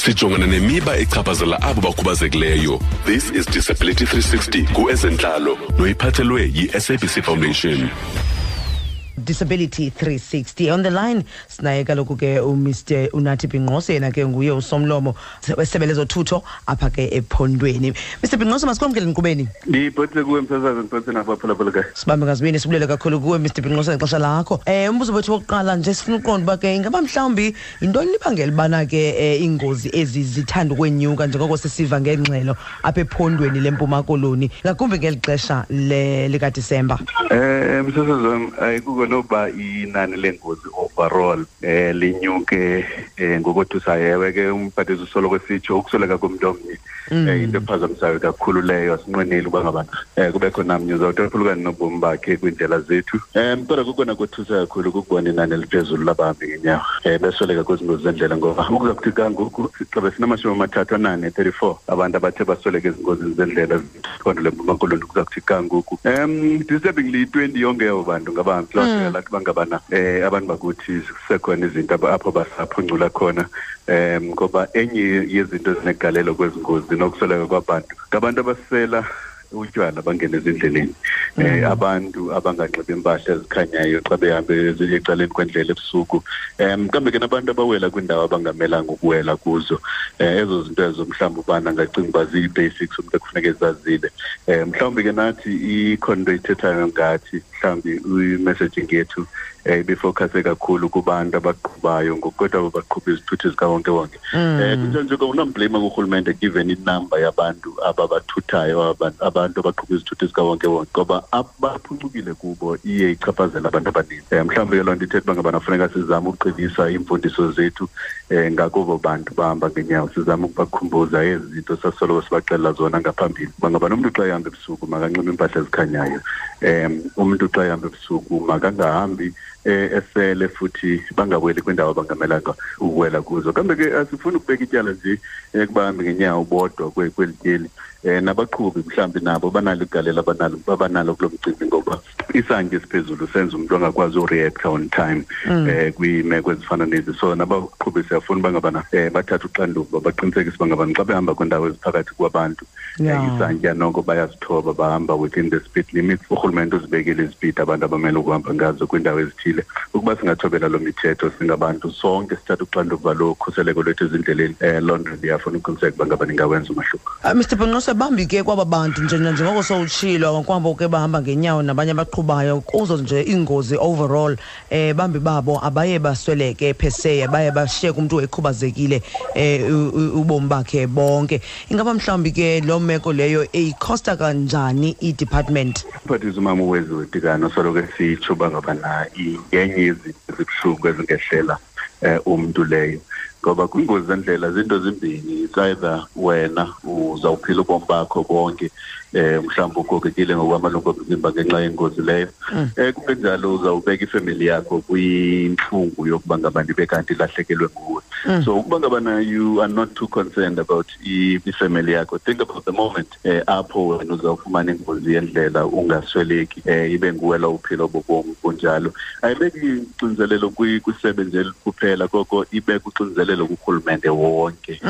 Sijongana nemiba echaphazela abo bakhubazekileyo. This is Disability 360 kuEzentlalo noyiphathelwe yi-SABC Foundation. Disability 360 on the line sinaye kaloku ke uMr Unathi Bhinqose, yena ke nguye usomlomo wesebe lezothutho apha ke ephondweni. Mr Bhinqose, masikwamkele enkqubeni. Ndibhotse kuwe, msasazi, ndibhotse nabaphulaphula kayo. Sibambe ngazibini, sibulele kakhulu kuwe, Mr Bhinqose, ngexesha lakho. Umbuzo wethu wokuqala nje, sifuna uqonda uba ke ingaba mhlawumbi yintoni libangela ubana ke iingozi ezi zithanda ukwenyuka njengoko sisiva ngengxelo apha ephondweni leMpuma Koloni, ngakumbi ngeli xesha likaDisemba? Msasazi wam, ayikuko noba inani leengozi overall linyuke ngokothusayo. Ewe ke, umphathiswa usoloko esitsho ukusweleka komntu omnye into ephazamisayo kakhulu leyo. Asinqweneli uba ngabana kubekho namnye uzawuthi aphulukane nobomi bakhe kwiindlela zethu, kodwa kukona kothusa kakhulu kukubona inani eliphezulu labahambi ngenyawo besweleka kwezi ngozi zendlela, ngoba ukuza kuthi kangoku sixabe sinama-34, 34 abantu abathe basweleka ezingozini zendlela phondo leMpuma Koloni kuza kuthi kangoku. Disturbingly, 20 yonke yabo bantu ngabahambi. Loo nto yalathi bangabana abantu bakuthi kusekhona izinto apho basaphuncula khona, ngoba enye yezinto ezinegalelo kwezi ngozi nokusweleka kwabantu ngabantu abasela utywala bangene ezindleleni, abantu abanganxibi impahla ezikhanyayo xa behambe ecaleni kwendlela ebusuku, kambe ke nabantu abawela kwiindawo abangamelanga ukuwela kuzo. Ezo zinto ezo mhlawumbi ubana angacinga uba zii-basics umntu ekufuneka ezazile. Mhlawumbi ke nathi ikhona into ithethayo ngathi, mhlawumbi i-messaging yethu ibifocuse kakhulu kubantu abaqhubayo, ngokukodwa abo baqhuba izithuthi zikawonkewonke. Kunjalo nje unamblame kurhulumente given inamba yabantu ababathuthayo, abantu abaqhuba izithuthi zikawonkewonke, ngoba abaphuncukile kubo iye ichaphazela abantu abaninzi. Mhlawumbi ke loo nto ithetha uba ngabana funeka sizame ukuqinisa iimfundiso zethu ngakubo bantu bahamba ngenyawo, sizame ukubakhumbuza ezi zinto sasoloko sibaxelela zona ngaphambili, uba ngabana umntu xa ehamba ebusuku makanxibe iimpahla ezikhanyayo, umntu xa ehamba ebusuku makangahambi esele, futhi bangaweli kwindawo abangamelanga ukuwela kuzo. Kambe ke asifuni ukubeka ityala nje kubahambi ngenyawo bodwa kweli tyeli. Nabaqhubi mhlawumbi nabo banalo igalelo abanalo kulo mcimbi, ngoba isantya esiphezulu senza umntu angakwazi ureacta on time kwiimeko ezifana nezi. So nabaqhubi siyafuna uba ngabana bathathe uxanduva, baqinisekise uba ngabana xa behamba kwiindawo eziphakathi kwabantu isantya noko bayazithoba, bahamba within the speed limits. Urhulumente uzibekile izipidi abantu abamele ukuhamba ngazo kwiindawo ezithile. Ukuba singathobela loo mithetho singabantu sonke, sithathe uxanduva lokhuseleko lwethu ezindleleni, loo nto ndiyafuna uqiniseka uba ngaba ningawenza umahluko. Mr Bhinqose, bambi ke kwaba bantu nje njengoko sowutshilo kwabo ke bahamba ngenyawo nabanye abaqhubayo kuzo nje iingozi overall, bambi babo abaye basweleke pheseya, baye bashiyeka umntu ekhubazekile ubomi bakhe bonke. Ingaba mhlawumbi ke loo meko leyo iyikhosta kanjani i-department? Umphathiswa umama uWeziwe Tikana soloko esitsho uba ngabana yenye yezinto ezibuhlungu ezingehlela umntu leyo, ngoba kwingozi zendlela zinto zimbini: it's either wena uzawuphila ubomi bakho bonke mhlawumbi ugogekile ngokwamalungu omzimba ngenxa yengozi leyo, kungenjalo uzawubeka ifemeli yakho kwintlungu yokuba ngaba ndibe kanti ilahlekelwe nguwe. So ukuba ngabana you are not too concerned about ifemeli yakho, think about the moment apho wena uzawufumana ingozi yendlela ungasweleki, ibe nguwe lo uphila obo bomi bunjalo. Ayibeki uxinzelelo kwisebe nje kuphela, koko ibeka uxinzelelo kurhulumente wonke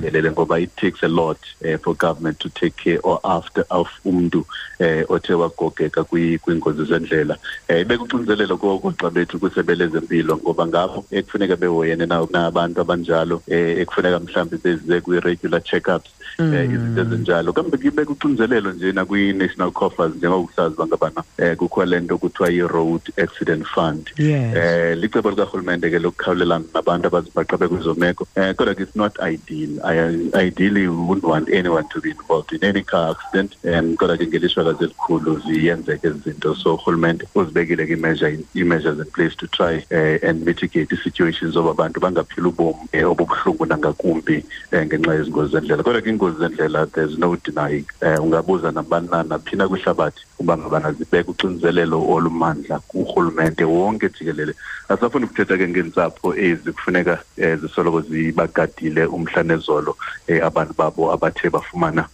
jikelele, ngoba it takes a lot for government to take care or after of umntu othe wagogeka kwiingozi zendlela. Ibeka uxinzelelo koogxa bethu kwisebe lezempilo, ngoba ngabo ekufuneka behoyene nabantu abanjalo, ekufuneka mhlawumbi beze kwi-regular check-ups, izinto ezinjalo. Kambe ke ibeka uxinzelelo nje nakwi-national coffers, njengoba usazi uba ngabana kukho le nto kuthiwa yi-Road Accident Fund. Licebo likarhulumente ke lokukhawulelana nabantu abazibhaqa bekwezo meko, kodwa ke it's not ideal. Ideally we wouldn't want anyone to be involved in any car accident, kodwa ke ngelishwakazi elikhulu ziyenzeka ezi zinto. So urhulumente uzibekile ke ii-measures in place to try and mitigate ii-situations zoba abantu bangaphili ubomi obubuhlungu nangakumbi ngenxa yezi ngozi zendlela. Kodwa ke iingozi zendlela, there's no denying, ungabuza nabani na naphina kwihlabathi uba ngabana zibeka uxinzelelo olumandla kurhulumente wonke jikelele. Asafuni ukuthetha ke ngeentsapho ezi kufuneka zisoloko zibagadile umhla nezolo abantu babo abathe bafumana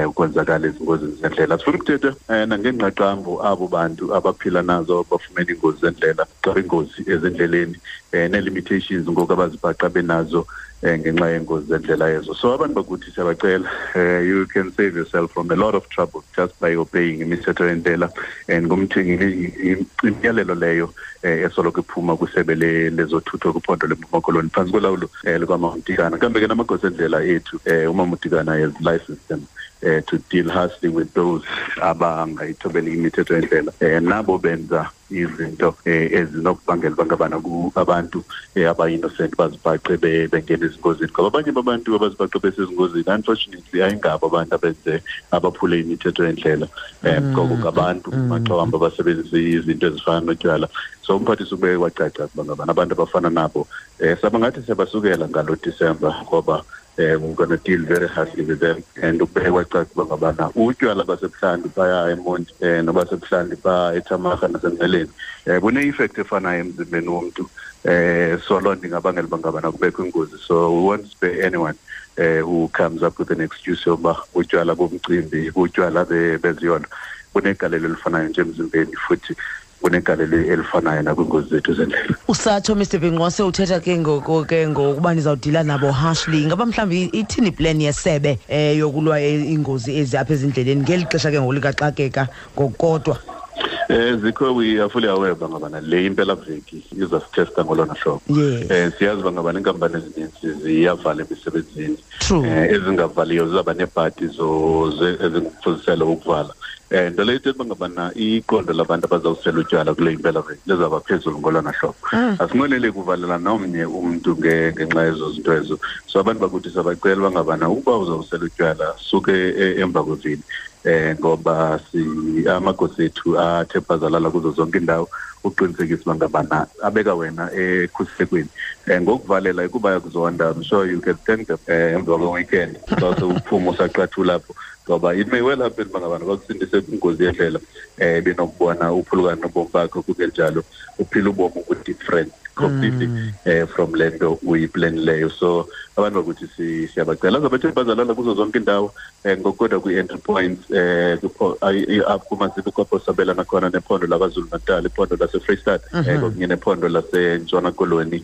ukwenzakala ezingozini zendlela. Sifuna ukuthetha nangengqaqambo abo bantu abaphila nazo, bafumene iingozi zendlela, xa ingozi ezindleleni, nee-limitations ngoku abazibhaqa benazo. Ngenxa yengozi zendlela ezo. So abantu bakuthi siyabacela, you can save yourself from a lot of trouble just by obeying imithetho yendlela and imiyalelo leyo esoloko iphuma kwisebe lezothutho kwiphondo leMpuma Koloni phantsi kolawulo lukaMamdikana. Kambe ke namagosa endlela ethu, uMamdikana has licensed them to deal harshly with those abangayithobeli imithetho yendlela, nabo benza izinto ezinokubangela uba ngabana abantu aba-innocent bazibhaqe bengena ezingozini, ngoba abanye babantu abazibhaqe besezingozini unfortunately ayingabo abantu abenze abaphule imithetho yendlela, ngoko ngabantu maxa wambi abasebenzisa izinto ezifana notywala. So umphathiswa ube wacaca ukuba ngabana abantu abafana nabo sabangathi siyabasukela ngalo Disemba, ngoba we're going to deal very harshly with them. And ukubeke kwacaca uba ngabana utywala basebuhlanti phaya eMonti, nobasebuhlanti phaa eThamaha naseNgqeleni, bune-effect efanayo emzimbeni womntu. So loo nto ingabangela uba ngabana kubekho ingozi. So we won't spare anyone who comes up with an excuse yokuba utywala bomcimbi, utywala beziyolo, bunegalelo elifanayo nje emzimbeni, futhi kunegalelo elifanayo nakwiingozi zethu zendlela. Usatsho, Mr Binqose, uthetha ke ngoku ke ngokuba nizawudila nabo harshly. Ingaba mhlawumbi ithini plan yesebe yokulwa iingozi ezi apha ezindleleni ngeli xesha ke ngoku likaxakeka ngokukodwa? Zikho, we are fully aware uba ngabana le impelaveki izasithesta ngolona hlobo. Siyazi uba ngabana iinkampani ezininzi ziyavala emisebenzini. Ezingavaliyo zizawuba neebhadi ezingumfuziselo wokuvala. Nto leyo ithetha uba ngabana iqondo labantu abazawusela utywala kule impelaveki lizawuba phezulu ngolona hlobo. Asinqweneli kuvalela nomnye umntu ngenxa yezo zinto ezo. So abantu bakuthi siyabacela uba ngabana ukuba uzawusela utywala suke emva kwevili, ngoba si amagosa ethu athe bhazalala kuzo zonke iindawo uqinisekisa uba ngabana abeka wena ekhuselekweni. Ngokuvalela ikuba yakuzonda, I'm sure you can thank them emva kwe-weekend xa sewuphuma usaqathula apho, ngoba it may well happen uba ngabana bakusindise kwingozi yendlela, benokubona uphulukana nobomi bakho, kungenjalo uphila ubomi obu-different completely from le nto uyiplanileyo. So abantu bakuthi siyabacela azabathe bazalala kuzo zonke iindawo, ngokukodwa kwii-entry points, apho kumaziko kwapho sabelana khona nephondo laKwaZulu Natal, iphondo laseFreyistata, kunye nephondo laseNtshona Koloni.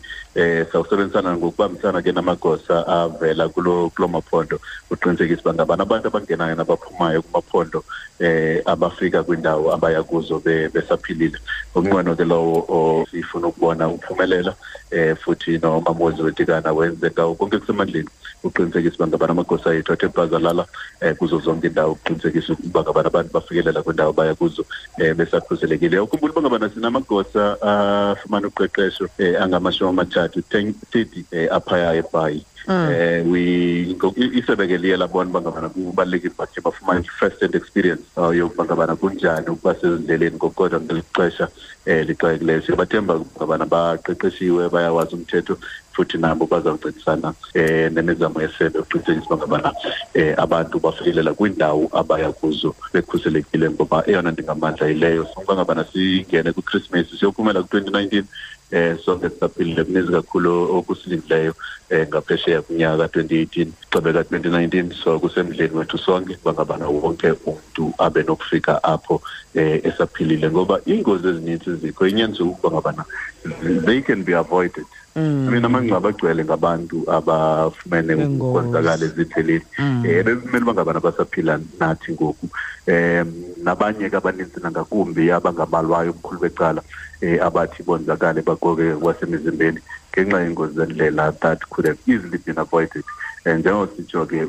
Sawusebenzisana ngokubambisana ke namagosa avela kulo maphondo uqinisekisa uba ngabana abantu abangenayo nabaphumayo kumaphondo abafika kwindawo abaya kuzo besaphilile. Ngumnqweno ke lowo sifuna ukubona uphumelela, futhi noMamuzi Wetikana wenze ngawo konke kusemandleni uqinisekisa uba ngabana amagosa ethu athe bhazalala kuzo zonke iindawo uqinisekisa ukuba ngabana abantu bafikelela kwindawo baya kuzo besakhuselekile. Ukhumbula uba ngabana sinamagosa afumana uqeqesho angama-30, 30, aphaya eBhayi. We isebe ke liye labona uba ngabana kubalulekile uba bakhe bafumane i-first hand experience yokuba ngabana kunjani ukuba sezindleleni, ngokukodwa ngeli xesha lixakekileyo. Siyabathemba ngabana baqeqeshiwe, bayawazi umthetho, futhi nabo bazawuncedisana nemizamo yesebe ukuqinisekisa uba ngabana abantu bafikelela kwiindawo abaya kuzo bekhuselekile, ngoba eyona nto ingamandla yileyo. Uba ngabana singene kwiKhrismesi, siyophumela ku-2019 sonke sisaphilile. Kuninzi kakhulu okusilindileyo ngaphesheya kunyaka ka-2018 xebe ka-2019, so kusemdleni wethu sonke uba ngabana wonke umntu abe nokufika apho esaphilile, ngoba iingozi ezininzi zikho inyaniso ukuba ngabana they can be avoided. I mean, amangcwaba agcwele ngabantu abafumene ukonzakala ezindleleni, bekumele uba ngabana basaphila nathi ngoku, nabanye ke abaninzi nangakumbi abangabalwayo ubukhulu becala, abathi bonzakale bagoke kwasemizimbeni ngenxa yengozi zendlela that could have easily been avoided. Njengoba sitsho ke,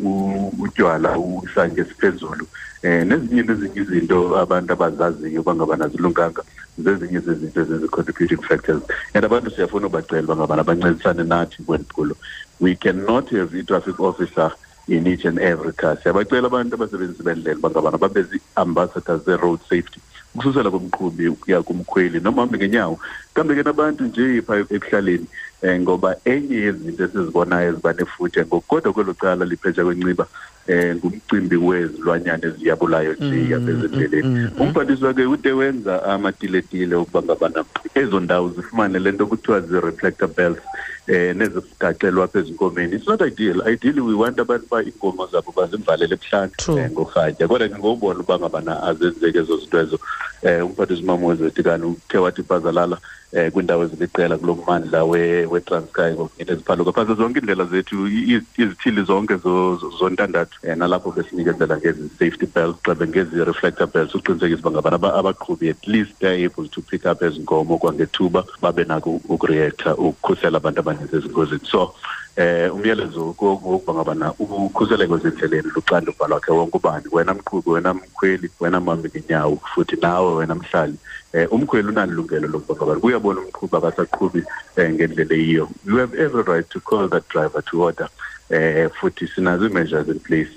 utywala, isantya esiphezulu, nezinye izinto abantu abazaziyo uba ngabana zilunganga, zezinye zezinto ezizi-contributing factors. And abantu siyafuna ubacela uba ngabana bancedisane nathi kweli phulo. We cannot have i-traffic officer in each and every car. Siyabacela abantu abasebenzisi bendlela uba ngabana babe zii-ambassadors ze-road safety, ukususela kumqhubi ukuya kumkhweli noma hambe ngenyawo, kambe ke nabantu nje phaa ekuhlaleni, ngoba enye yezinto esizibonayo eziba nefuthe ngokukodwa kwelo cala liphetsha kwenciba ngumcimbi wezilwanyana eziyabulayo nje apha ezindleleni. Umphathiswa ke ude wenza amatiletile ukuba ngabana ezo ndawo zifumane le nto kuthiwa zii-reflector belts nezigaxelwa apha ezinkomeni. It's not ideal. Ideally we want abantu uba iinkomo zabo bazivalele ebuhlanti ngorhatya, kodwa ke ngobona uba ngabana azenzeki ezo zinto ezo. Umphathiswa uMamwezi Tikana uthe wathi bhazalala kwiindawo eziliqela kulo mmandla weTranskei ngokungena phantse zonke iindlela zethu, izithili zonke zontandathu, nalapho besinikezela ngezi safety belts, xebe ngezi reflector belts, uqinisekisa uba ngabana abaqhubi at least they're able to pick up ezi nkomo kwangethuba, babe nako ukureacta ukukhusela abantu abaninzi ezingozini. So umyalezo wokuba ngabana ukhuseleko ezindleleni luxanduva lwakhe wonke ubani, wena mqhubi, wena mkhweli, wena mhambi ngenyawo, futhi nawe wena mhlali. Umkhweli unalungelo lokuba ngabana kuyabona umqhubi akasaqhubi ngendlela eyiyo. You have every right to call that driver to order. Futhi sinazo ii-measures in place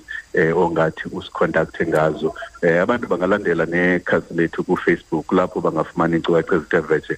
ongathi usicontacte ngazo. Abantu bangalandela nekhasi lethu kuFacebook, lapho bangafumana iinkcukacha ezithe vetshe,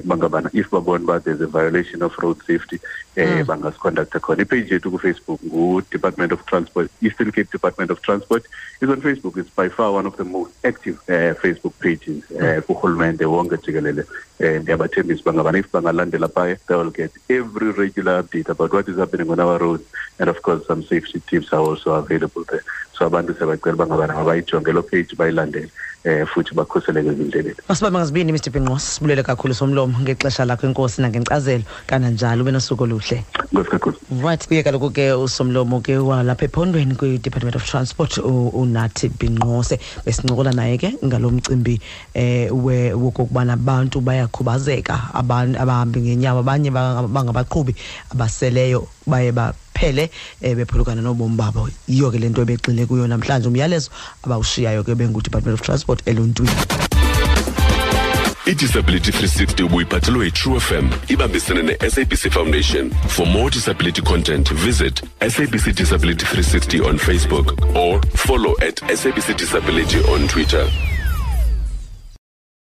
kuba ngabana if babona uba there's a violation of road safety, bangasicontacta khona. Ipage yethu kuFacebook ngu-Department of Transport, Eastern Cape Department of Transport is on Facebook. It's by far one of the most active Facebook pages kurhulumente wonke jikelele. Ndiyabathembisa uba ngabana if bangalandela phaya, they will get every regular update about what is happening on our roads, and of course some safety tips are also available there. So abantu siyabacela uba ngabana mabayijonge loo page, bayilandele, futhi bakhuseleke ezindleleni. Masibambe ngazibini, Mr Binqose, sibulele kakhulu somlomo ngexesha lakho, enkosi nangenkcazelo, kananjalo ube nosuku oluhle. Enkosi kakhulu. Right, kuye kaloku ke usomlomo ke walapha ephondweni kwi-Department of Transport, uNathi Binqose, besincokola naye ke ngalo mcimbi wokokubana abantu bayakhubazeka, abahambi ngenyawo, abanye bangabaqhubi abaseleyo baye baphele bephulukana nobomi babo. Yiyo ke le nto ebegxile kuyo namhlanje, umyalezo abawushiyayo ke bengu-Department of Transport eluntwini. I-Disability 360 ubuyiphathelwe yi-True FM ibambisene ne-SABC Foundation. For more disability content, visit SABC Disability 360 on Facebook or follow at SABC Disability on Twitter.